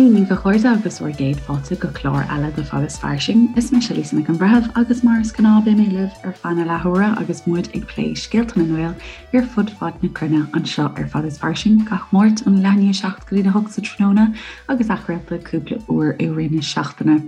Dia daoibh a chairde agus bhur gcéad fáilte go clár eile de Fad is Fairsing. Is mise Lisa Nic an Bhreithimh agus mar is gnáth beidh mé libh ar feadh na leathuaire agus muid ag plé scéalta na nGael ar fud fad na cruinne anseo ar Fad is Fairsing gach Máirt ón leath i ndiaidh 7 go dtí 8 sa tráthnóna agus athchraolta cúpla uair i rith na seachtaine.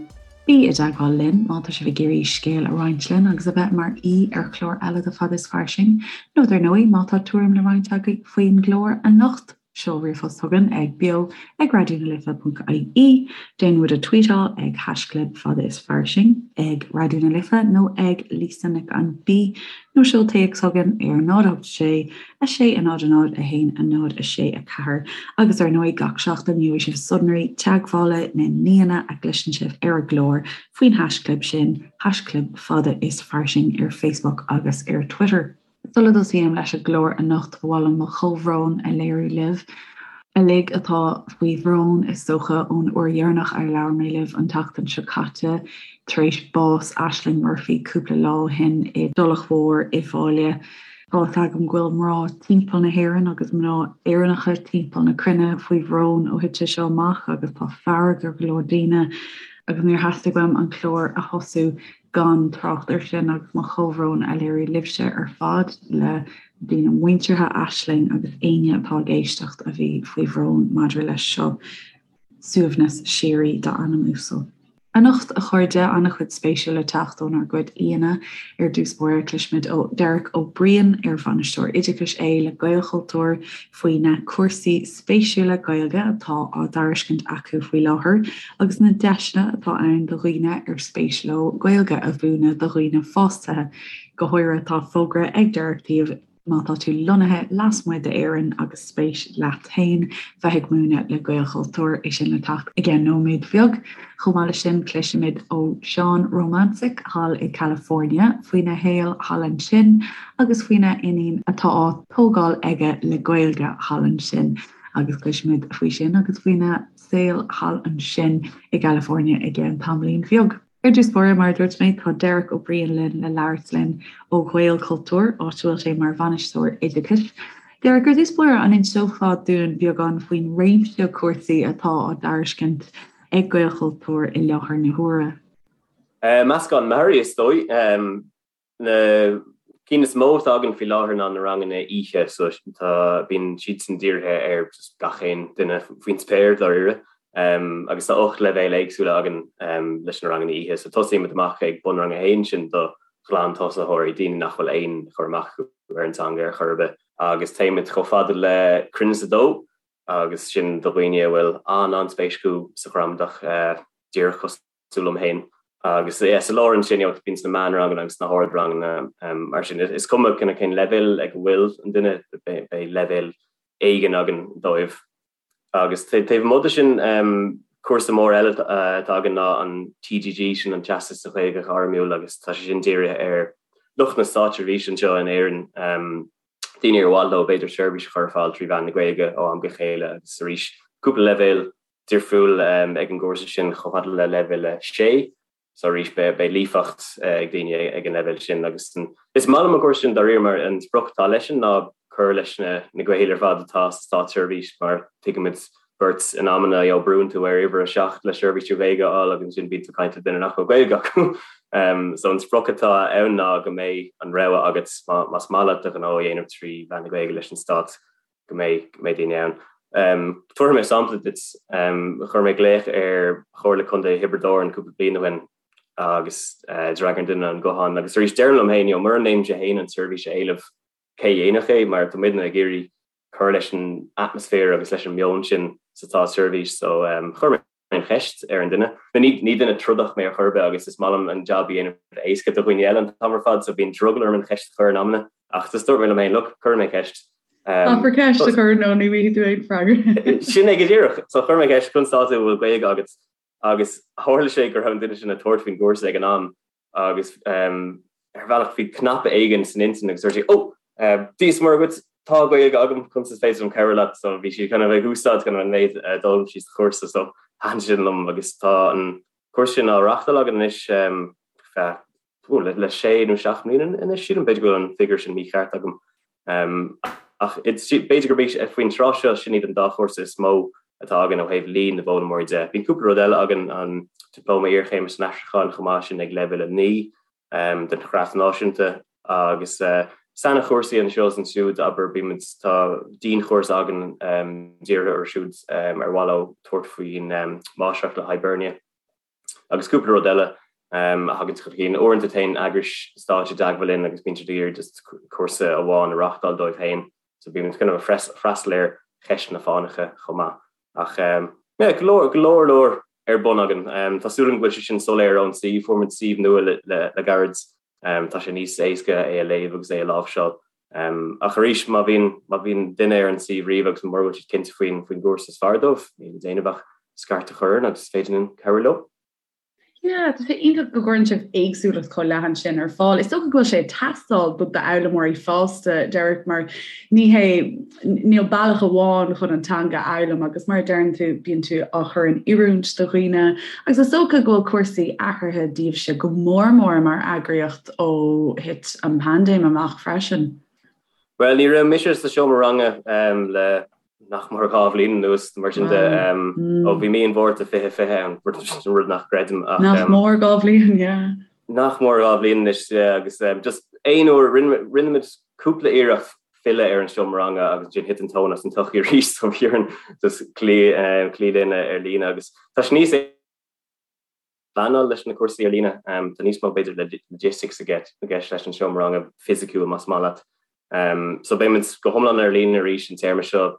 Bí i dteagmháil linn má tá sibh ag iarraidh scéal a roinnt linn agus a bheith mar aoi ar chlár eile de Fad is Fairsing nó dar ndóigh má tá tuairim le roinnt agaibh faoin gclár anocht. Seol ríomhphost chugainn ag beo ag raidió na life ponc ie, déan muid a tweetáil ag haischlib fada is fairsing ag Raidió na Life nó ag Lisa Nic an B nó seol téacs chugainn ar 0 8 6 6 0 0 1 0 6 4 agus ar ndóigh gach seachtain gheobhaidh sibh sonraí teagmhála na n-aíonna a gcloiseann sibh ar an gclár faoin haischlib sin, haischlib fada is fairsing ar Facebook agus ar Twitter. Sula dtosaím leis an gclár anocht, ba mhaith liom mo chomhbhrón a léiriú libh uilig atá faoi bhrón, is dócha, ón uair dheireanach ar labhair mé libh an tseachtain seo caite, tar éis bás Ashling Murphy cúpla lá ó shin i dTulach Mhór i bhFáile. Tá fhios agam go bhfuil mná timpeall na hÉireann agus mná Éireannacha timpeall na cruinne faoi bhrón ó thit sé seo amach agus tá fearg ar go leor daoine agus níor theastaigh uaim an clár a thosú gan trácht air sin agus mo chomhbhrón a léiriú libhse ar fad, le daoine muinteartha Ashling agus éinne atá ag éisteacht a bhí faoi bhrón maidir leis seo. Suaimhneas síoraí dá anam uasal. Anocht, a chairde, an-chuid spéisiúil le teacht ónár gcuid aíonna. Ar dtús báire, cloisfimid ó Derek Ó Briain, ar Bhainisteoir Oideachais é le Gaelchultúr, faoi na cúrsaí spéisiúla Gaeilge atá á dtairiscint acu faoi láthair agus na deiseanna atá ann do dhaoine ar spéis leo Gaeilge a mhúineadh do dhaoine fásta. Go háirithe tá fógra ag Derek daoibh má tá tú lonnaithe lasmuigh d'Éirinn agus spéis leat féin bheith ag múineadh le Gaelchultúr, é sin le teacht i gceann nóiméad bheag. Chomh maith leis sin cloisfimid ó Seán Romansic thall i California faoina shaol thall ansin agus faoina iníon atá á tógáil aige le Gaeilge thall ansin agus cloisfimid faoi sin agus faoina saol thall ansin i gCalifornia i gceann tamaillín bheag. Ar dtús báire, mar a dúirt mé, tá Derek Ó Briain linn le labhairt linn ó Ghaelchultúr, áit a bhfuil sé mar Bhainisteoir Oideachais. Derek, ar dtús báire, an inseofá dúinn beagán faoin réimse cúrsaí atá á dtairiscint ag Gaelchultúr i láthair na huaire? Meascán mearaí, is dóigh. Na cinn is mó atá againn faoi láthair ná na ranganna oíche, so tá, bíonn siadsan dírithe ar just gach aon duine faoin spéir, dáiríre. Agus tá 8 leibhéal éagsúla againn leis na ranganna oíche, so tosaímid amach ag bunrang a haon, sin do ghlantosaitheoirí, daoine nach bhfuil aon chur amach acu ar an teanga ar chor ar bith, agus téimid chomh fada le Cruinneas 2, agus sin do dhaoine a bhfuil an-an-spéis acu sa ghramadach, díreach cosúil cosúil liom féin. Agus yeah, sa lár ansin, you know, bíonn na meánranganna agus na hardranganna mar sin. Is cuma kind of cén leibhéal ag a bhfuil an duine, beidh leibhéal éigin againn dóibh. Agus taobh amuigh de sin, cúrsa mór eile atá againn ná an TGG, sin an Teastas sa Ghaeilge Ghairmiúil agus tá sé sin dírithe ar lucht na státseirbhíse anseo in Éirinn, daoine ar mhaith leo b'fhéidir seirbhís a chur ar fáil trí mheán na Gaeilge ó am go chéile agus arís cúpla leibhéal difriúil ag an gcúrsa sin chomh fada le leibhéal 6 so arís beidh líofacht ag daoine ag an leibhéal sin agus is maith liom an cúrsa sin dáiríre mar an sprioc atá leis sin ná cur leis na na Gaeil ar fad atá sa státseirbhís mar tuigimid beirt in amanna you know brúnn tú ar uimhir 7 le seirbhís trí Ghaeilge a fháil agus ansin bíonn tú ag caint le duine nach bhfuil Gaeilge acu. So an sprioc atá ann ná go mbeidh an rogha agat más maith leat do ghnó a dhéanamh trí mheán na Gaeilge leis an stát go mbeidh go mbeidh daoine ann. Tabharfaidh mé sampla duit. Chuir mé glaoch ar Chomhairle Contae Thiobraid Árann cúpla bliain ó shin agus d'fhreagair an duine an guthán agus arís deirim liom féin, you know, mura ndéanaimse féin an tseirbhís a éileamh, cé a dhéanfadh é mar tá muidne ag iarraidh cur leis an atmaisféar agus leis an meon sin sa státseirbhís so chuir mé an cheist ar an duine. Ní ní duine trodach mé ar chor ar bith agus is maith liom an jab a dhéanamh éasca do dhaoine eile an t-am ar fad so bíonn drogall orm an cheist a chur in amanna ach just dúirt mé liom féin, look, cuirfidh mé ceist. Caithfear ceist a chur nó ní bhfaighidh tú aon freagra. Sin é go díreach. So chuir mé ceist conas tá tú an bhfuil Gaeilge agat agus tharla sé go raibh an duine sin ag tabhairt faoin gcúrsa ag an am agus ar bhealach bhí cnaipe éigin san intinn agus dúirt sí, 'Ó, Dia is Muire dhuit, tá Gaeilge agam, conas is féidir liom cabhrú leat? So bhí sí kind of ag úsáid kind of an méid a d'fhoghlaim sí sa chúrsa so thaitin sin liom agus tá an cúrsa sin á reáchtáil againn anois feadh le sé nó seacht mbliana anois sílim, b'fhéidir go bhfuil an figiúr sin mícheart agam. Ach b'fhéidir gurb é faoin tráth seo sin iad an dá chúrsa is mó. atá againn ó thaobh líon na bhfoghlaimeoirí de. Bíonn cúpla rud eile againn, an Dioplóma Iarchéime san Aistriúchán chomh maith, sin ag leibhéal 9 den Chreat Náisiúnta, agus sainchúrsaí anseo is ansiúd, abair, bímid, tá dianchúrsa againn dírithe orthu siúd ar mhaith leo tabhairt faoin Máistreacht le Hibernia. Agus cúpla rud eile a thagann chun cinn. Uaireanta téann eagrais stáit i dteagmháil linn agus bíonn siad ag iarraidh just cúrsa amháin a reáchtáil dóibh féin. So bíonn muid kind of ag freastal ar cheisteanna fánacha chomh maith. Ach yeah, go leor, go leor leor ar bun againn. Tá súil agam go bhfuil sé sin soiléir ón suíomh. Fuair muid suíomh nua le gairid. Tá sé níos éasca é a léamh agus é a láimhseáil. Ach arís, má bhíonn, má bhíonn duine ar an suíomh riamh agus mura bhfuil siad cinnte faoin, faoin gcúrsa is fearr dóibh, níl le déanamh ach scairt a chur orainn agus is féidir linn cabhrú leo. Yeah, tá sé iontach go gcuireann sibh éagsúlacht chomh leathan sin ar fáil. Is dócha go bhfuil sé ag teastáil do d'fhoghlaimeoirí fásta, Derek, mar ní hé, níl bealach amháin chun an teanga a fhoghlaim agus mar a deireann tú, bíonn tú á chur in oiriúint do dhaoine agus is dócha go bhfuil cúrsaí athraithe daoibhse go mór mór mar eagraíocht ó thit an paindéim amach freisin. Bhuel, ní raibh mise sa seomra ranga le nach mór 2 bhliain anuas, mar sin de, ó bhí mí an Mhárta 2020 ann, rud nach gcreidim ach. Nach mór 2 bhliain, yeah. Nach mór 2 bhliain anois, yeah, agus just aon uair, rinne muid cúpla iarracht filleadh ar an seomra ranga agus ansin thit an tóin as an tsochaí arís so bhí orainn just cloí cloí linn ar líne agus tá sé níos pleanáil leis na cúrsaí ar líne. Tá níos mó b'fhéidir logistics i gceist leis an seomra ranga fisiciúil más maith leat. So beidh muid go hiomlán ar líne arís an téarma seo.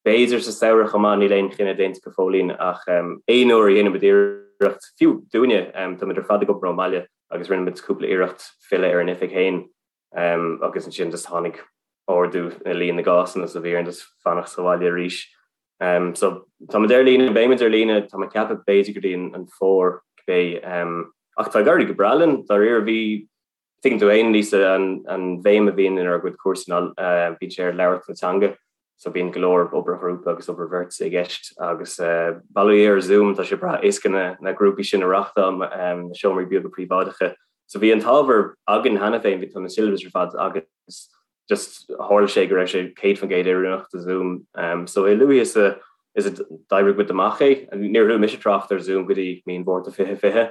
B'fhéidir sa samhradh chomh maith, níl aon chinneadh déanta go fóillín ach aon uair a dhéanann muid iarracht, fiú dúinne, táimid ar fad ag obair ón mbaile agus rinne muid cúpla iarracht filleadh ar an oifig féin agus ansin just tháinig ardú i líon na gcásanna so bhí orainn just fanacht sa bhaile arís. So táimid ar líne, beimid ar líne, tá mé ag ceapadh b'fhéidir go dtí an fómhar cibé. Ach tá ag éirí go breá linn, dáiríre bhí, tuigeann tú fhéin Lisa, an bhéim a bhíonn inár gcuid cúrsaí ná bíonn sé ar labhairt na teanga. So bíonn go leor obair ghrúpa agus obair bheirte i gceist agus bail ó Dhia ar Zoom, tá sé breá éasca na grúpaí sin a reáchtáil, na seomraí beaga príobháideacha. So bhí an t-ábhar againn cheana féin, bhí tá na syllabus ar fad agus just tharla sé go raibh sé 100% oiriúnach do Zoom. So a luaithe is a is a d'oibrigh muid amach é, níor chuala mise trácht ar Zoom go dtí mí an Mhárta 2020.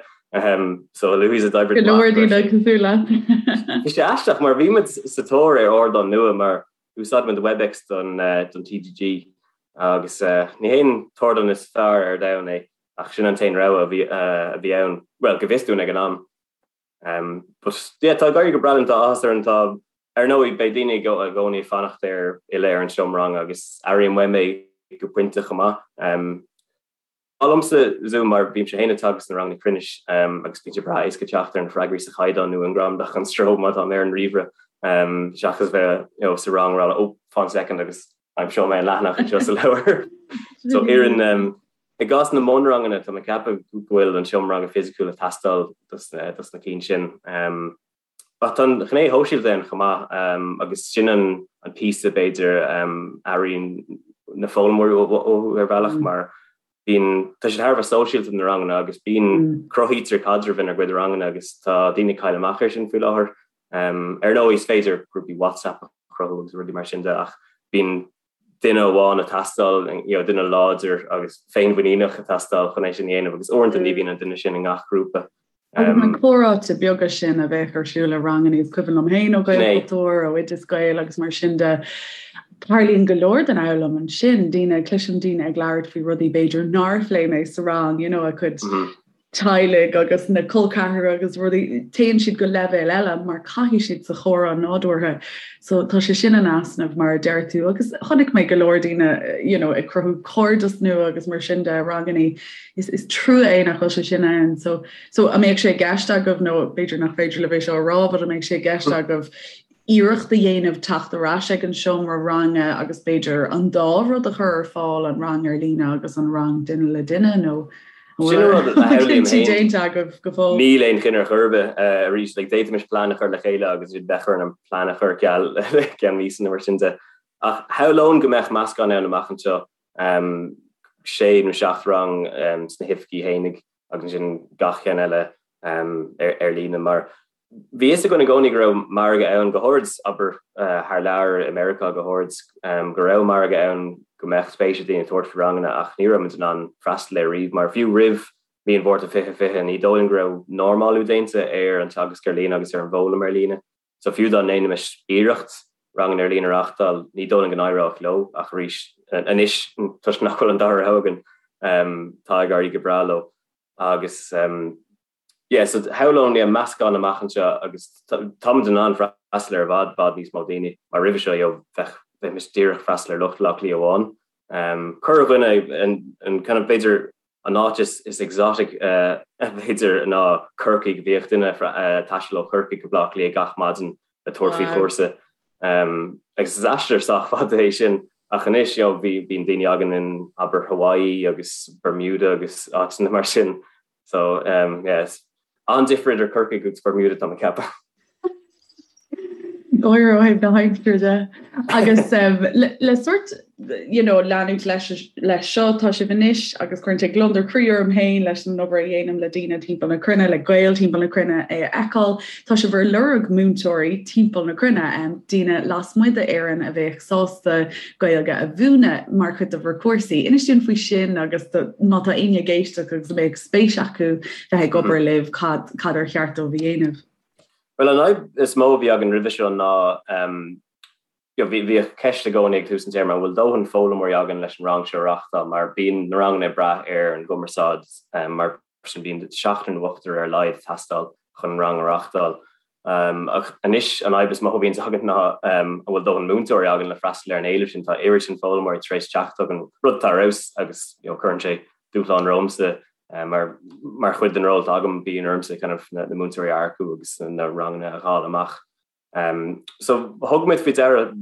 So a luaithe is a d'oibrigh Go leor daoine cosúil leat. Bhí sé aisteach mar bhí muid sa tóir ar ardán nua mar Úsáidimid Webex don TGG agus ní hé an t-ardán is fearr ar domhan é ach sin an t-aon rogha a bhí ann, bhuel, go bhfios dúinn ag an am. But yeah, tá ag éirí go breá linn, tá áthas orainn, tá, ar ndóigh, beidh daoine i gcónaí ag fanacht ar fhilleadh ar an seomra ranga agus airím uaim é go pointe chomh maith. Maith liomsa Zoom mar bímse féin ag teagasc na ranganna cruinnis agus bíonn sé breá éasca teacht ar na freagraí sa chaighdeán nó i ngramadach gan stró má táim ar an ríomhaire seachas bheith you know sa rang ag rá oh fan soicind agus aimseoidh mé an leathanach anseo sa leabhar. So oireann i gcás na mbunranganna tá mé ag ceapadh go bhfuil an seomra ranga fisiciúil ag teastáil dos na cinn sin. Ach tá an ghné shóisialta ann chomh maith agus sin an píosa b'fhéidir a airíonn na foghlaimeoirí uathu ar bhealach mar bíonn, tá siad thar a bheith sóisialta na ranganna agus bíonn, cruthaítear caidreamh inár gcuid ranganna agus tá daoine ag cailleadh amach air sin faoi láthair. Ar ndóigh is féidir grúpaí WhatsApp a chruthú agus rudaí mar sin de ach bíonn duine amháin ag teastáil, you know, duine láidir agus féinmhuiníneach ag teastáil chun é sin a dhéanamh agus uaireanta ní bhíonn an duine sin i ngach grúpa. Agus na comhráite beaga sin a bheadh ar siúl i ranganna, is cuimhin liom féin ó Ghaelchultúr, ó Oideas Gael agus mar sin de, tarlaíonn go leor den fhoghlaim ansin, daoine, cloisim daoine ag labhairt faoi rudaí b'fhéidir nár phléigh mé sa rang, you know, a gcuid teaghlaigh agus na col ceathracha agus rudaí, téann siad go leibhéal eile mar caithfidh siad sa chomhrá nádúrtha. So tá sé sin in easnamh mar a deir tú agus chonaic mé go leor daoine you know, ag cruthú cairdeas nua agus mar sin de i ranganna. Is, is trua é nach bhfuil sé sin ann. So, so an mbeadh sé i gceist agaibh nó b'fhéidir nach féidir libh é seo a rá, but an mbeadh sé i gceist agaibh iarracht a dhéanamh teacht ar ais ag an seomra ranga agus b'fhéidir an dá rud a chur ar fáil, an rang ar líne agus an rang duine le duine nó Sin an rud a shamhlaím féin. déanta agaibh go fóill? Níl aon chinneadh ar chor ar bith arís. Like, d'fhéadfaimis plean a chur le chéile agus bheadh orainn an plean a chur ar ceal i gceann míosa nó mar sin de. Ach shamhlóinn go mbeadh meascán ann amach anseo, sé nó seacht rang sna hoifigí fhéinig agus ansin gach ceann eile ar líne mar Bhí fhios againn i gcónaí go raibh margadh ann, go háirid, abair, thar lear, i Meiriceá go háirid, go raibh margadh ann. go mbeadh spéis ag daoine tabhairt faoi ranganna ach ní raibh muid in ann freastal air riamh mar fiú roimh mí an Mhárta 2020 ní dóigh liom go raibh normálú déanta ar an teagasc ar líne agus ar an bhfoghlaim ar líne. So fiú dá ndéanfaimis iarracht ranganna ar líne a reáchtáil ní dóigh liom go n-éireodh leo ach arís anois toisc nach bhfuil an dara rogha againn tá ag éirí go breá leo agus Yeah, so shamhlóinn yeah, meascán amach anseo agus táimid in ann freastal ar i bhfad, bhfad níos mó daoine mar roimhe seo, you know, bheadh, bheimis díreach freastal ar lucht Bhaile Átha Cliath amháin. Um, corrdhuine an, an kind of b'fhéidir an áit is, is exotic uh, b'fhéidir ná Corcaigh, bhíodh duine uh, taisteal ó Chorcaigh go Baile Átha Cliath gach maidin le tabhairt faoi chúrsa. Um, agus is aistear sách fada é sin ach anois you know, bhí, bíonn daoine againn in abair Hawaii agus Bermuda agus áiteanna mar sin So, um, yes. An-difear idir Corcaigh agus Bermuda tá mé ag ceapadh. Gáire ó thaobh na haimsire de. Agus um, le, le sort you know, leanúint leis, leis seo tá sibh anois agus cuireann sé gliondar croí orm féin leis an obair a dhéanaim le daoine timpeall na cruinne, le Gaeil timpeall na cruinne é a fheiceáil. Tá sibh ar lorg múinteoirí timpeall na cruinne, um, daoine lasmuigh d'Éirinn a bheadh sásta Gaeilge a mhúineadh mar chuid de bhur cúrsaí. Inis dúinn faoi sin agus má tá éinne ag éisteacht agus a mbeadh spéis acu bheith ag obair libh, cad cad ar cheart dóibh a dhéanamh? Bhuel, an fhadhb is mó a bhí againn roimhe seo ná bhíodh ceist i gcónaí ag tús an téarma, an bhfuil dóthain foghlaimeoirí againn leis an rang seo a reáchtáil mar bíonn na ranganna ag brath ar an gcumarsáid mar sin bíonn seachtar nó ochtar ar a laghad ag teastáil chun rang a reáchtáil. Ach anois an fhadhb is mó a bhíonns againn ná an bhfuil dóthain múinteoirí againn le freastal ar an éileamh sin. Tá oiread sin foghlaimeoirí tar éis teacht chugainn, rud atá ar fheabhas agus you know cuireann sé dúshlán romhamsa mar mar chuid den ról atá agam bíonn ormsa kind of na múinteoirí a earcú agus na ranganna a dháileadh amach. So thug muid faoi deara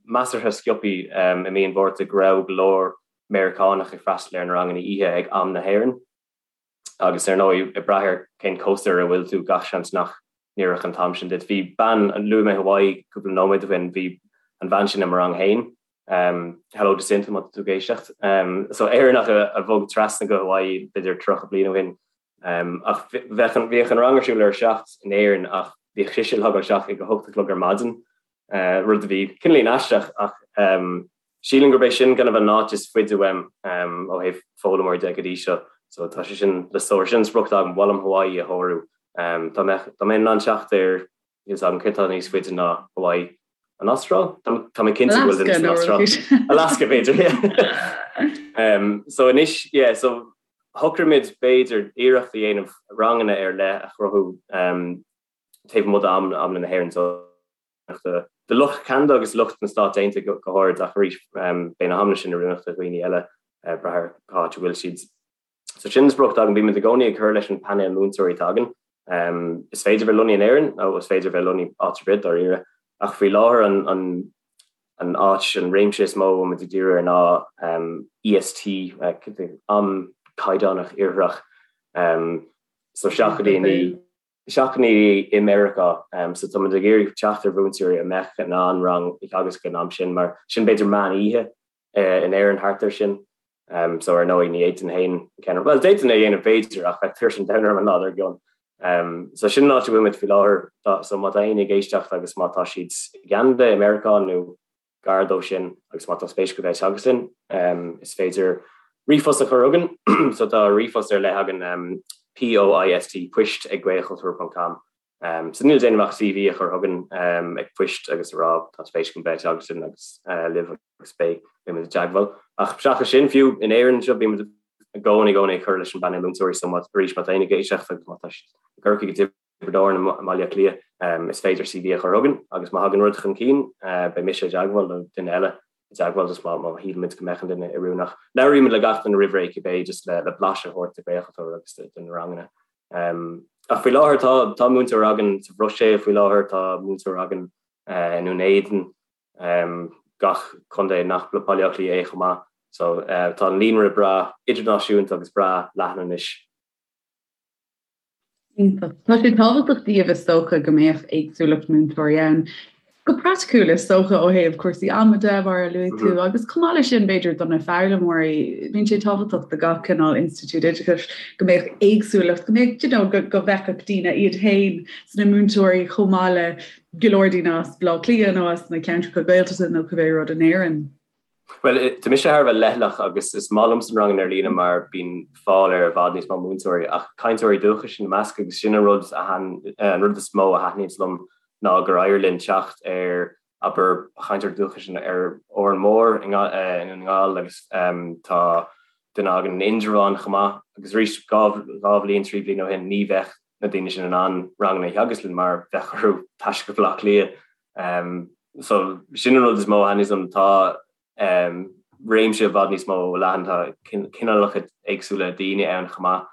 measartha sciobtha i mí an Mhárta go raibh go leor Meiriceánach ag freastal ar na ranganna oíche ag am na hÉireann. Agus ar ndóigh, ag brath ar cén cósta ar a bhfuil tú, gach seans nach n-oirfeadh an t-am sin duit. Bhí bean, luaigh mé Hawaii cúpla nóiméad ó shin, bhí an bhean sin i mo rang féin, hello Jacinta má tá tú ag éisteacht. So Éireannach a bhog trasna go Hawaii b'fhéidir 30 bliain ó shin. Ach bheadh an, bhíodh an rang ar siúl ar a seacht in Éirinn ach bhíodh sise ag logáil isteach ag a hocht a chlog ar maidin, rud a bhí cineáilín aisteach ach Sílim gurb é sin kind of an áit is faide uaim ó thaobh foghlaimeoirí de go dtí seo. So tá sé sin le sárú. Sin an sprioc atá agam, ba mhaith liom Hawaii a shárú. Dá mbeadh, dá mbeinn in ann teacht ar, níl 's agam céard atá níos faide ná Hawaii. An Astráil? Tá mé cinnte go bhfuil duine san Astráil. Alaska b'fhéidir, yeah. So anois, yeah, so shocraigh muid b'fhéidir iarracht a dhéanamh ranganna ar leith a chruthú taobh amuigh d'amanna na hÉireann. So do lucht Cheanada agus lucht na Stát Aontaithe go háirid, ach arís beidh na hamanna sin oiriúnach do dhaoine eile brath ar cá háit a bhfuil siad. So sin an sprioc atá againn. Bímid i gcónaí ag cur leis an painéal múinteoirí atá againn. Is féidir bheith lonnaithe in Éirinn nó is féidir bheith lonnaithe áit ar bith dáiríre, ach faoi láthair an an an áit, an réimse is mó a bhfuil muid ag díriú air ná EST, am caighdeánach iartharach. So 7:00 7:00 i Meiriceá. So tá muid ag iarraidh teacht ar mhúinteoirí a mbeadh in ann rang a theagasc an am sin mar sin b'fhéidir meán oíche in Éirinn thart air sin. So ar ndóigh ní fhéadfainn féin ceann, bhuel d'fhéadfainn é a dhéanamh b'fhéidir ach bheadh tuirse an domhain orm an lá dár gcionn. So sin an áit a bhfuil muid faoi láthair. So má tá éinne ag éisteacht agus má tá siad i gCeanada, i Meiriceá nó gar dó sin agus má tá spéis acu bheith ag teagasc linn, is féidir ríomhphost a chur chugainn. So tá ríomhphost ar leith againn, POIST, poist ag gaelchultúr ponc com. So níl le déanamh ach CV a chur chugainn ag poist agus a rá tá spéis agam bheith ag teagasc linn agus libh agus beidh muid i dteagmháil. Ach seachas sin, fiú in Éirinn anseo, bímid i gcónaí i gcónaí ag cur leis an bpainéal múinteoirí so má arís má tá éinne ag éisteacht agus má tá siad i gCorcaigh i Tiobraid Árann i mBaile Átha Cliath, is féidir CV a chur chugainn agus má thagann rud chun cinn, beidh mise i dteagmháil nó duine eile i dteagmháil just má shílimid go mbeadh an duine oiriúnach. Labhraímid le gach duine roimh ré cibé just le blaiseadh a thabhairt de Ghaelchultúr agus de na ranganna. Ach faoi láthair tá tá múinteoir againn sa Bhruiséil faoi láthair, tá múinteoir againn i nDún Éideann, gach contae nach Baile Átha Cliath é chomh maith. So tá an líonra breá idirnáisiúnta agus breá leathan anois. Iontach. Tá sé tábhachtach daoibh is dócha go mbeadh éagsúlacht múinteoirí ann. Go praiticiúil is dócha ó thaobh cúrsaí ama de mar a luaigh tú agus chomh maith leis sin b'fhéidir do na foghlaimeoirí, bíonn sé tábhachtach do gach cineál institiúid oideachais go mbeadh éagsúlacht, go mbeadh you know go go bhfeicfeadh daoine iad féin sna múinteoirí chomh maith le go leor daoine as Baile Átha Cliath nó as na ceantracha Gaeltachta nó cibé rud in Éirinn. Bhuel, tá mise thar a bheith leithleach agus is maith liomsa na ranganna ar líne mar bíonn fáil ar i bhfad níos mó múinteoirí ach cainteoirí dúchais ina measc agus sin an rud a an rud is mó a thaitníonns liom ná gur éirigh linn teacht ar abair chainteoir dúchais ar Órán Mór i nDún na nGall agus tá duine againn in Indreabhán chomh maith agus arís 2 bhliain, 3 bhliain ó shin ní bheadh na daoine sin in ann ranganna a theagasc linn mar bheadh orthu taisteal go Baile Átha Cliath. So sin an rud is mó a thaitníonns liom, tá réimse i bhfad níos mó leathan, tá cineálacha éagsúla daoine ann chomh maith.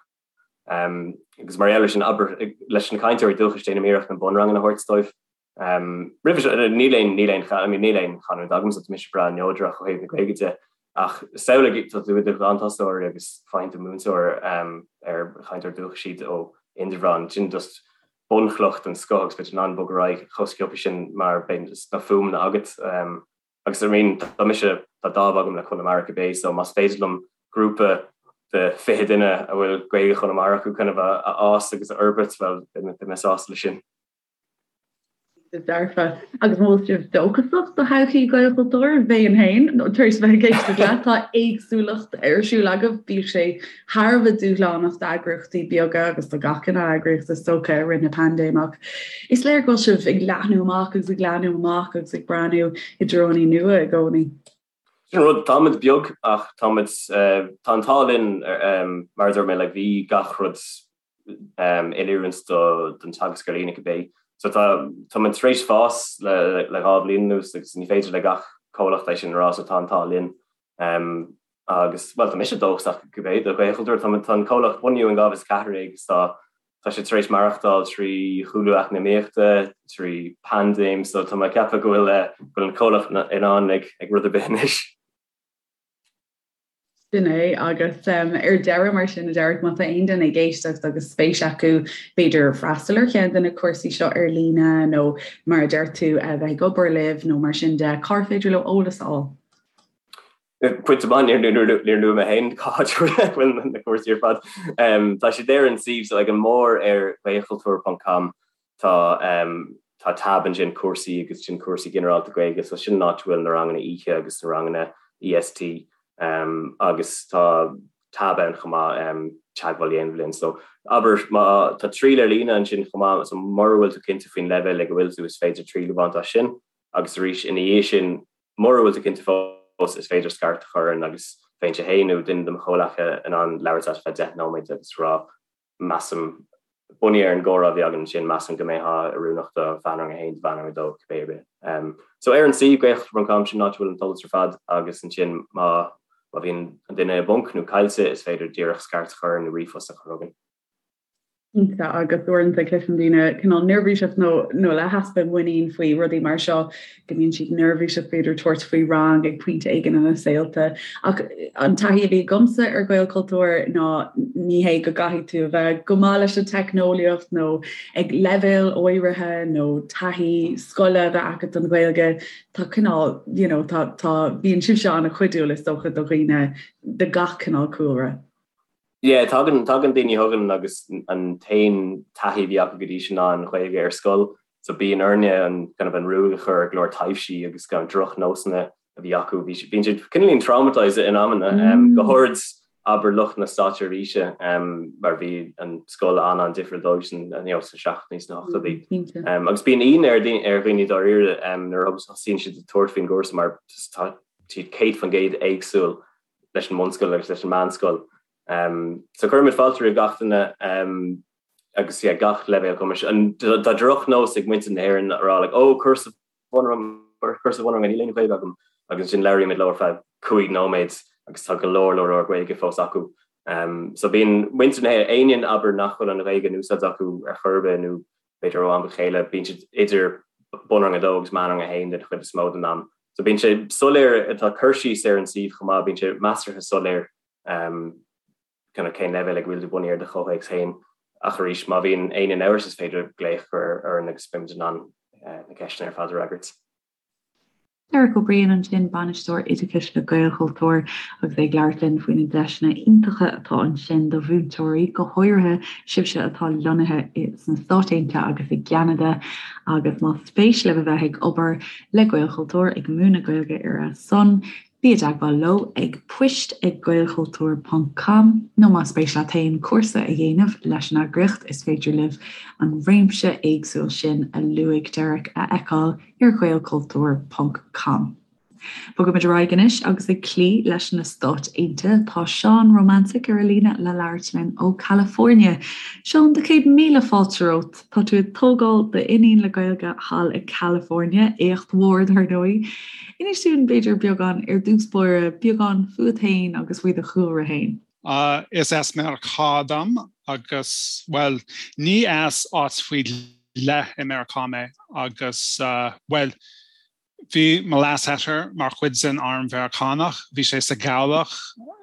Agus mar gheall air sin, abair, leis na cainteoirí dúchais déanaim iarracht na bunranganna a thabhairt dóibh. Roimhe seo, níl aon, níl aon, I mean, níl aon chanúint agamsa, tá mise breá neodrach ó thaobh na Gaeilge de, ach samhlaigh, tá tú i do ghlanthosóir agus faigheann tú múinteoir ar chainteoir dúchais iad ó Indreabhán, sin just bunchloch den scoth agus beidh tú in ann bogadh ar aghaidh chomh sciobtha sin mar beidh na fuaimeanna agat. Agus I mean, tá mise, tá dáimh agam le Conamara cibé, so más féidir liom grúpa de 20 duine a bhfuil Gaeilge Chonamara acu kind of a fhás agus a fhorbairt, bhuel, beidh mé sásta leis sin. Dearfa. Agus an bhfuil sibh dóchasach do thodhchaí Ghaelchultúir? Bheinn féin, tar éis bheith ag éisteacht leat, tá éagsúlacht ar siúl agaibh, bíodh sé thar a bheith dúshlánach d'eagraíochtaí beaga agus do gach cineál eagraíocht is dócha i rith na paindéime ach is léir go bhfuil sibh ag leathnú amach agus ag leathnú amach agus ag breathnú i dtreonna nua i gcónaí. Sin an rud, táimid beag ach táimid, tá an t-ádh linn mar a dúirt mé, like bhí gach rud in oiriúint don teagasc ar líne cibé. So tá, táimid tar éis fás le le 2 bhliain anuas agus ní féidir le gach comhlacht é sin a rá so tá an t-ádh linn. Agus, bhuel, tá mise dóchasach cibé do Ghaelchultúr, tá tá an comhlacht bunaithe in 2014 agus tá tá sé tar éis maireachtáil trí chúlú eacnamaíochta, trí paindéim, so tá mé ag ceapadh go bhfuil go bhfuil an comhlacht in ann ag ag rud ar bith anois. Sin é, agus ar deireadh mar sin, a Derek, má tá aon duine ag éisteacht agus spéis acu b'fhéidir freastal ar cheann de na cúrsaí seo ar líne nó mar a deir tú a bheith ag obair libh nó mar sin de, cár féidir leo eolas a fháil? Pointe maith, níor luaigh mé féin cá háit a bhfuil na cúrsaí ar fad. Tá siad ar an suíomh, so ag an mbarr ar gaelchultúr.com Tá tá tab ansin cúrsaí agus sin cúrsaí ginearálta Gaeilge so sin an áit a bhfuil na ranganna oíche agus na ranganna EST agus tá tab ann chomh maith teagmháil a dhéanamh linn. So abair má tá triail ar líne ansin chomh maith so mura bhfuil tú cinnte faoin leibhéal ag a bhfuil tú is féidir triail a bhaint as sin agus arís ina dhiaidh sin mura bhfuil tú cinnte fós is féidir scairt a chur orainn agus bheinnse féin nó duine de mo chomhleacaithe in ann labhairt leat ar feadh 10 nóiméad agus rá measaim, bunaithe ar an gcomhrá a bhí againn ansin, measaim go mbeifeá oiriúnach do mheánrang 1, do mheánrang 2, cibé ar bith. So ar an suíomh, gaelchultúr.com, sin an áit a bhfuil an t-eolas ar fad agus ansin má má bhíonn an duine i bponc nó caillte, is féidir díreach scairt a chur nó ríomhphost a chur chugainn. Cinnte, agus uaireanta cloisim daoine cineál neirbhíseach nó nó le heaspa muinín faoi rudaí mar seo. go mbíonn siad neirbhíseach b'fhéidir tabhairt faoi rang ag pointe éigin ina saolta. Ach an taithí a bhí agamsa ar Ghaelchultúr ná ní hé go gcaithfidh tú a bheith go maith leis an teicneolaíocht nó ag leibhéal áirithe nó taithí scoile a bheith agat don Ghaeilge, tá cineál, you know, tá, tá, bíonn sibhse an-chuidiúil is dócha do dhaoine de gach cineál cúlra. Yeah, tagann, tagann daoine chugainn agus an t-aon taithí a bhí acu go dtí sin ná an Ghaeilge ar scoil, so bíonn orainne an kind of an ruaig a chur ar go leor taibhsí agus kind of drochnósanna a bhí acu. Bhí, bíonn siad cineáilín traumatised in amanna, um, go háirid abair lucht na státseirbhíse, um, mar bhí an scoil an-an-difriúil dóibh san, you know, sna seachtóidí sna hochtóidí. Um, agus bíonn ionadh ar daoine, ar dhaoine dáiríre, um, nuair a thosaíonn siad ag tabhairt faoin gcúrsa mar tá siad 100% éagsúil leis an mbunscoil agus leis an meánscoil. So cuirimid fáilte roimh gach duine agus yeah, gach leibhéal cumais. Tá drochnós ag muintir na hÉireann a rá like, oh, cúrsa bunrang, cúrsa bunranga, níl aon Ghaeilge agam agus ansin labhraímid leo ar feadh 5 nóiméad agus tá go leor leor leor Gaeilge fós acu. Um, so bíonn muintir na hÉireann, éinne abair nach bhfuil an Ghaeilge in úsáid acu ar chor ar bith nó b'fhéidir ó am go chéile, bíonn siad idir bunrang 2 agus meánrang 1 den chuid is mó den am. So bíonn sé soiléir, tá cur síos ar an suíomh chomh maith, bíonn sé measartha soiléir kind of cén leibhéal ag a bhfuil tú bunaithe ar do chomhthéacs féin. Ach arís, má bhíonn éinne in amhras is féidir glaoch a chur orainn agus beimid in ann na ceisteanna ar fad a fhreagairt. Derek Ó Briain ansin, Bainisteoir Oideachais le Gaelchultúr, agus é ag labhairt linn faoi na deiseanna iontacha atá ansin do mhúinteoirí, go háirithe sibhse atá lonnaithe sna Stáit Aontaithe agus i gCeanada. Agus más spéis libh a bheith ag obair le Gaelchultúr, ag múineadh Gaeilge ar a son. Bí i dteagmháil leo ag poist ag gaelchultúr ponc com nó más spéis leat féin cúrsa a dhéanamh leis an eagraíocht is féidir libh an réimse éagsúil sin a luaigh Derek a fheiceáil ar ghaelchultúr ponc com. Bogaimid ar aghaidh anois agus ag cloí leis na Stáit Aontaithe tá Seán Romantic ar an líne le labhairt linn ó California. Seán, do 100,000 fáilte romhat. Tá tú ag tógáil d'iníon le Gaeilge thall i California, éacht mhór dar ndóigh. Inis dúinn, b'fhéidir, beagán ar dtús báire, beagán fúat féin agus faoi do chúlra féin. Is as Meiriceá dom agus, bhuel, ní as áit faoi leith i Meiriceá mé agus, bhuel, Bhí mo leasathair mar chuid den arm Mheiriceánach, bhí sé sa gcabhlach,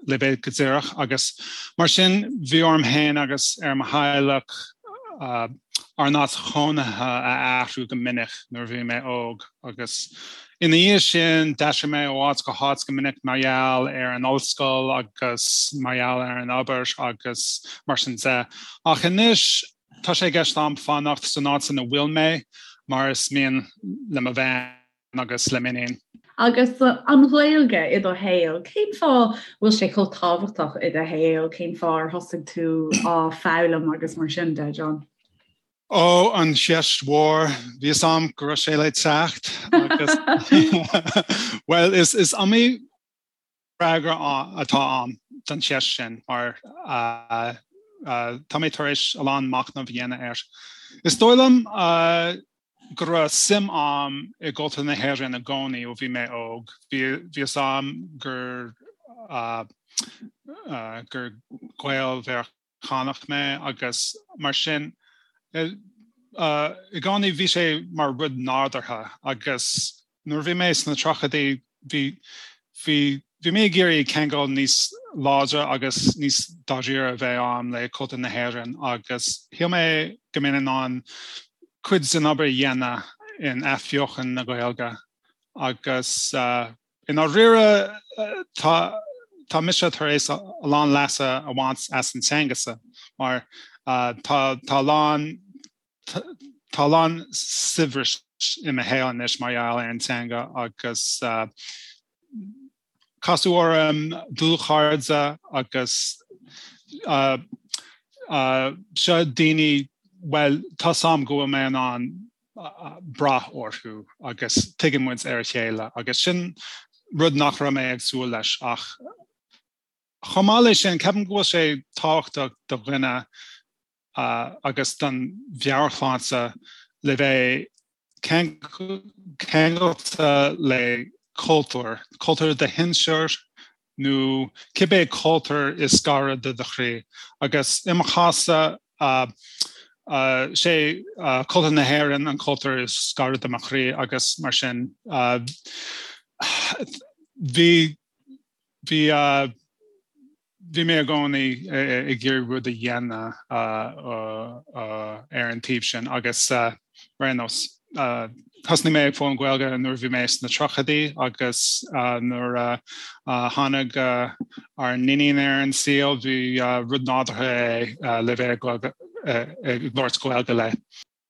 le bheith go díreach, agus mar sin bhí orm féin agus ar mo theaghlach ár n-áit chónaithe a athrú go minic nuair a bhí mé óg agus ina dhiaidh sin d'aistrigh mé ó áit go háit go minic mar gheall ar an ollscoil agus mar gheall ar an obair agus mar sin de. Ach anois Tá sé i gceist a'm fanacht san áit ina bhfuil mé mar is mian le mo bhean agus le m'iníon. Agus an Ghaeilge i do shaol, cén fáth bhfuil sé chomh tábhachtach i do shaol, cén fáth ar thosaigh tú á foghlaim agus mar sin de, John? Ó, an cheist mhór, bhí fhios a'm go raibh sé le teacht agus bhuel is is iomaí freagra atá ann don cheist sin mar tá mé tar éis a lán machnamh a dhéanamh air. Is dóigh liom go raibh suim a'm i gcultúr na hÉireann i gcónaí ó bhí mé óg. Bhí fhios a'm gur gur Gael-Mheiriceánach Meiriceánach mé agus mar sin i gcónaí bhí sé mar rud nádúrtha agus nuair a bhí mé sna tríochaidí bhí bhí bhí mé ag iarraidh ceangal níos láidre agus níos dáiríre a bheith a'm le cultúr na hÉireann agus shíl mé go mbeinn in ann cuid den obair a dhéanamh in athbheochan na Gaeilge agus I ndáiríre, tá tá mise tar éis a lán leasa a bhaint as an teanga-sa mar tá tá a lán tá a lán saibhris i mo shaol anois mar gheall ar an teanga agus casadh orm dlúthchairde agus seo daoine, bhuel, tá 's a'm go bhfuil mé in ann brath orthu agus tuigeann muid ar a chéile agus sin rud nach raibh mé ag súil leis ach chomh maith leis sin ceapaim go bhfuil sé tábhachtach do dhuine agus don mheabhairshláinte le bheith ceangailte le cultúr, cultúr do shinsear nó cibé cultúr is gaire do do chroí. Agus i mo chás-sa, sé cultúr na hÉireann an cultúr is gaire do mo chroí agus mar sin bhí bhí Bhí mé i gcónaí ag iarraidh rud a dhéanamh ar an taobh sin agus ar aon nós, thosnaigh mé ag foghlaim Gaeilge nuair a bhí mé sna tríochaidí agus nuair a tháinig ár n-iníon ar an saol, bhí rud nádúrtha é le bheith ag labhairt Gaeilge léi.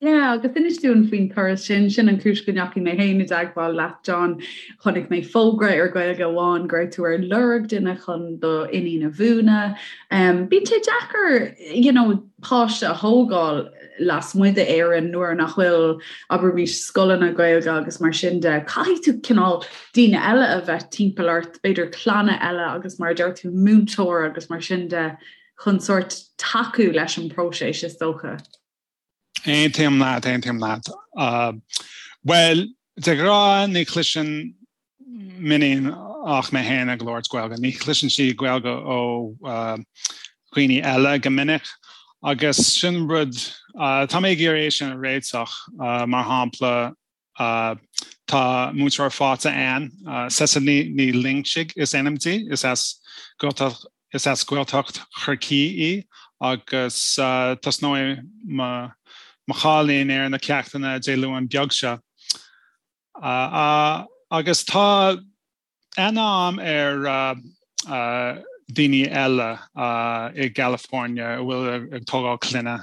Yeah, agus inis dúinn faoin turas sin, sin an chúis go ndeachaigh mé féin i dteagmháil leat, John. Chonaic mé fógra ar Gaeilge Amháin go raibh tú ar lorg duine chun do iníon a mhúineadh. Um, bíonn sé deacair, you know, páiste a thógáil lasmuigh d'Éirinn nuair nach bhfuil, abraimis, scoileanna Gaeilge agus mar sin de. Caithfidh tú cineál daoine eile a bheith timpeall ort, b'fhéidir clanna eile agus mar a deir tú múinteoir agus mar sin de chun sórt tacú leis an bpróiseas is dócha. Aontaím leat, aontaím leat. Bhuel, de ghnáth ní chloiseann m'iníon ach mé féin ag labhairt Gaeilge. Ní chloiseann sí Gaeilge ó dhaoine eile go minic agus sin rud, tá mé ag iarraidh é sin a réiteach, mar shampla Tá múinteoir faighte ann, Cecily Ní Loingsigh is ainm di, is as Gaeltacht is as Gaeltacht Chorcaí í agus tosnóidh mo chailín ar na ceachtanna Dé Luain beag seo. Agus tá aithne a'm ar daoine eile i gCalifornia a bhfuil ag tógáil clainne.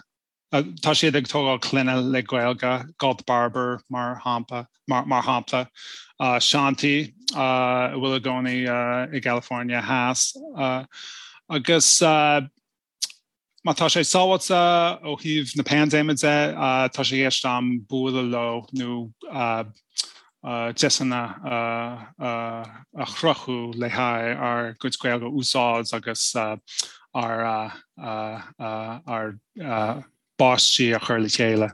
Tá siad ag tógáil clainne le Gaeilge, Galt Barber mar shampla, mar shampla, Shanti a bhfuil i gcónaí i gCalifornia Theas agus má tá sé sábháilte ó thaobh na paindéime de, tá sé i gceist agam bualadh leo nó deiseanna a chruthú le haghaidh ár gcuid Gaeilge a úsáid agus ár bpáistí a chur le chéile.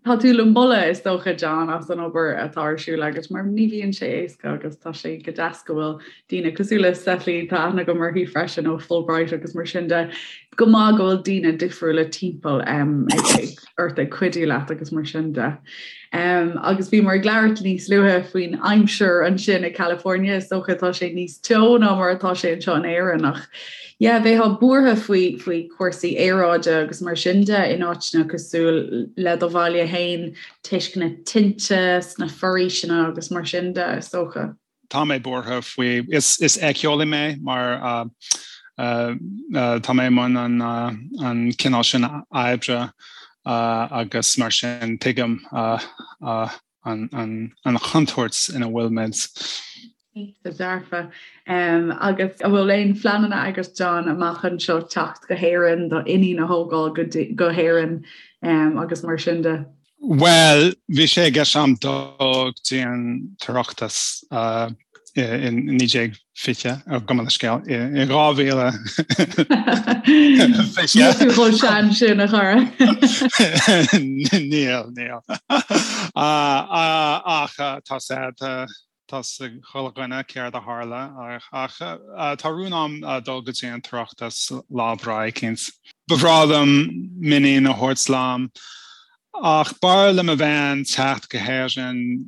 Tá tú le moladh, is dócha, John, as an obair atá ar siúl agat, mar ní bhíonn sé éasca agus tá sé go deas go bhfuil daoine cosúil le Cecily, tá aithne agam uirthi freisin ó Fulbright agus mar sin de, go maith go bhfuil daoine difriúla timpeall ort ag cuidiú leat agus mar sin de. Agus bhíomar ag labhairt níos luaithe faoin aimsir ansin i California, is dócha tá sé níos teo ná mar atá sé anseo in Éirinn ach yeah, bheifeá buartha faoi faoi chúrsaí aeráide agus mar sin de in áiteanna cosúil le do bhaile féin toisc na tinte sna foraoiseanna agus mar sin de, is dócha. Tá mé buartha faoi. Is éiceolaí mé mar tá mé i mbun an cineál sin oibre agus mar sin tuigim an chontúirt ina bhfuil muid. Cinnte dearfa. Agus an bhfuil aon phleananna agat John amach anseo teacht go hÉirinn, do iníon a thógáil go hÉirinn agus mar sin de? Bhuel, bhí sé i gceist agam dul go dtí an tOireachtas i 1920, gabh mo leithscéal, i 2020. Níl tú chomh sean sin, a chara. Níl, níl. Ach tá sé, Tá 'fhios ag chuile dhuine céard a tharla ach tá rún agam dul go dtí an tOireachtas lá breá eicínt. Ba bhreá liom m'iníon a thabhairt liom ach b'fhearr le mo bhean teacht go hÉirinn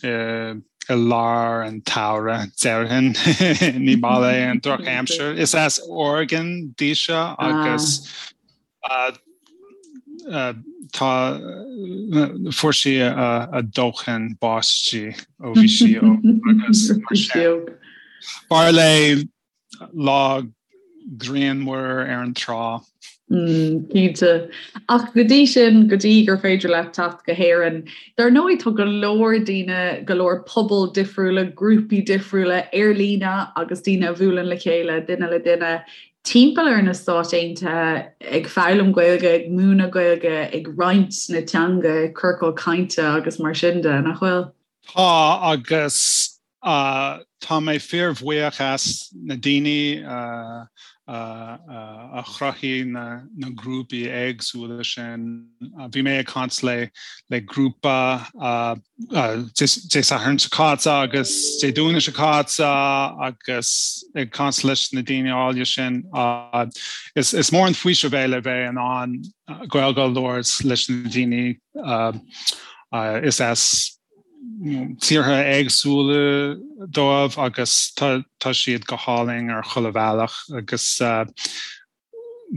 i lár an tsamhraidh, déarfainn. Ní maith léi an drochaimsir. Is as Oregon dise agus Tá, fuair sí a dóthain báistí ó bhí sí óg agus mar sin. B'fhearr léi lá grianmhar ar an trá. Cinnte. Ach go dtí sin, go dtí gur féidir leat teacht go hÉirinn, dar ndóigh tá go leor daoine, go leor pobal difriúla, grúpaí difriúla ar líne agus daoine a bhuaileann le chéile, duine le duine, timpeall ar na Stáit Aontaithe ag foghlaim Gaeilge, ag múineadh Gaeilge, ag roinnt na teanga, ciorcail cainte agus mar sin de, nach bhfuil? Tá, agus tá mé fíorbhuíoch as na daoine a chruthaigh na grúpaí éagsúla sin. Bhí mé ag caint le grúpa Dé Sathairn seo caite agus Dé Domhnaigh seo caite agus ag caint leis na daoine áille sin. Is mór an faoiseamh é le bheith in ann Gaeilge a labhairt leis na daoine is as tíortha éagsúla dóibh agus tá siad go hálainn ar chuile bhealach agus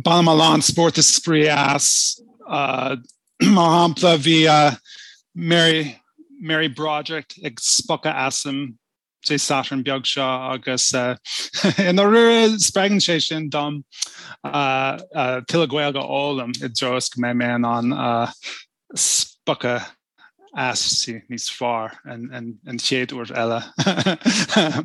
Bainim a lán spórt is spraoi as. Mar shampla, bhí Mary Mary Broderick ag spochadh asam Dé Sathairn beag seo agus i ndáiríre spreagann sé sin dom tuilleadh Gaeilge a fhoghlaim i dtreo is go mbeidh mé in ann spochadh aisti níos fearr an chéad uair eile,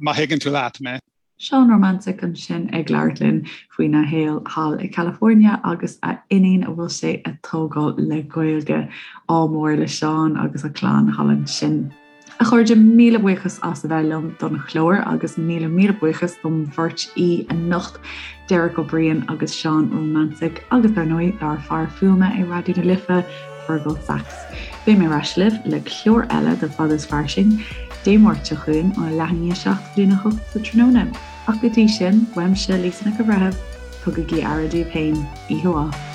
má thuigeann tú leat mé. Seán Rumancik ansin ag labhairt linn faoina shaol thall i California agus a iníon a bhfuil sé a tógáil le Gaeilge. Ádh mór le Seán agus a chlann thall ansin. A chairde, míle buíochas as a bheith liom don chlár agus míle míle buíochas dom bheirt aoi anocht, Derek Ó Briain agus Seán Rumancik agus dar ndóigh dár fear fuaime i Raidió na Life, Fergal Sachs. Beidh mé ar ais libh le clár eile de Fada is Fairsing Dé Máirt seo chugainn ó leath i ndiaidh 7 go dtína 8 sa tráthnóna. Ach go dtí sin, uaimse Lisa Nic an Bhreithimh, tugaigí aire daoibh féin. Oíche mhaith.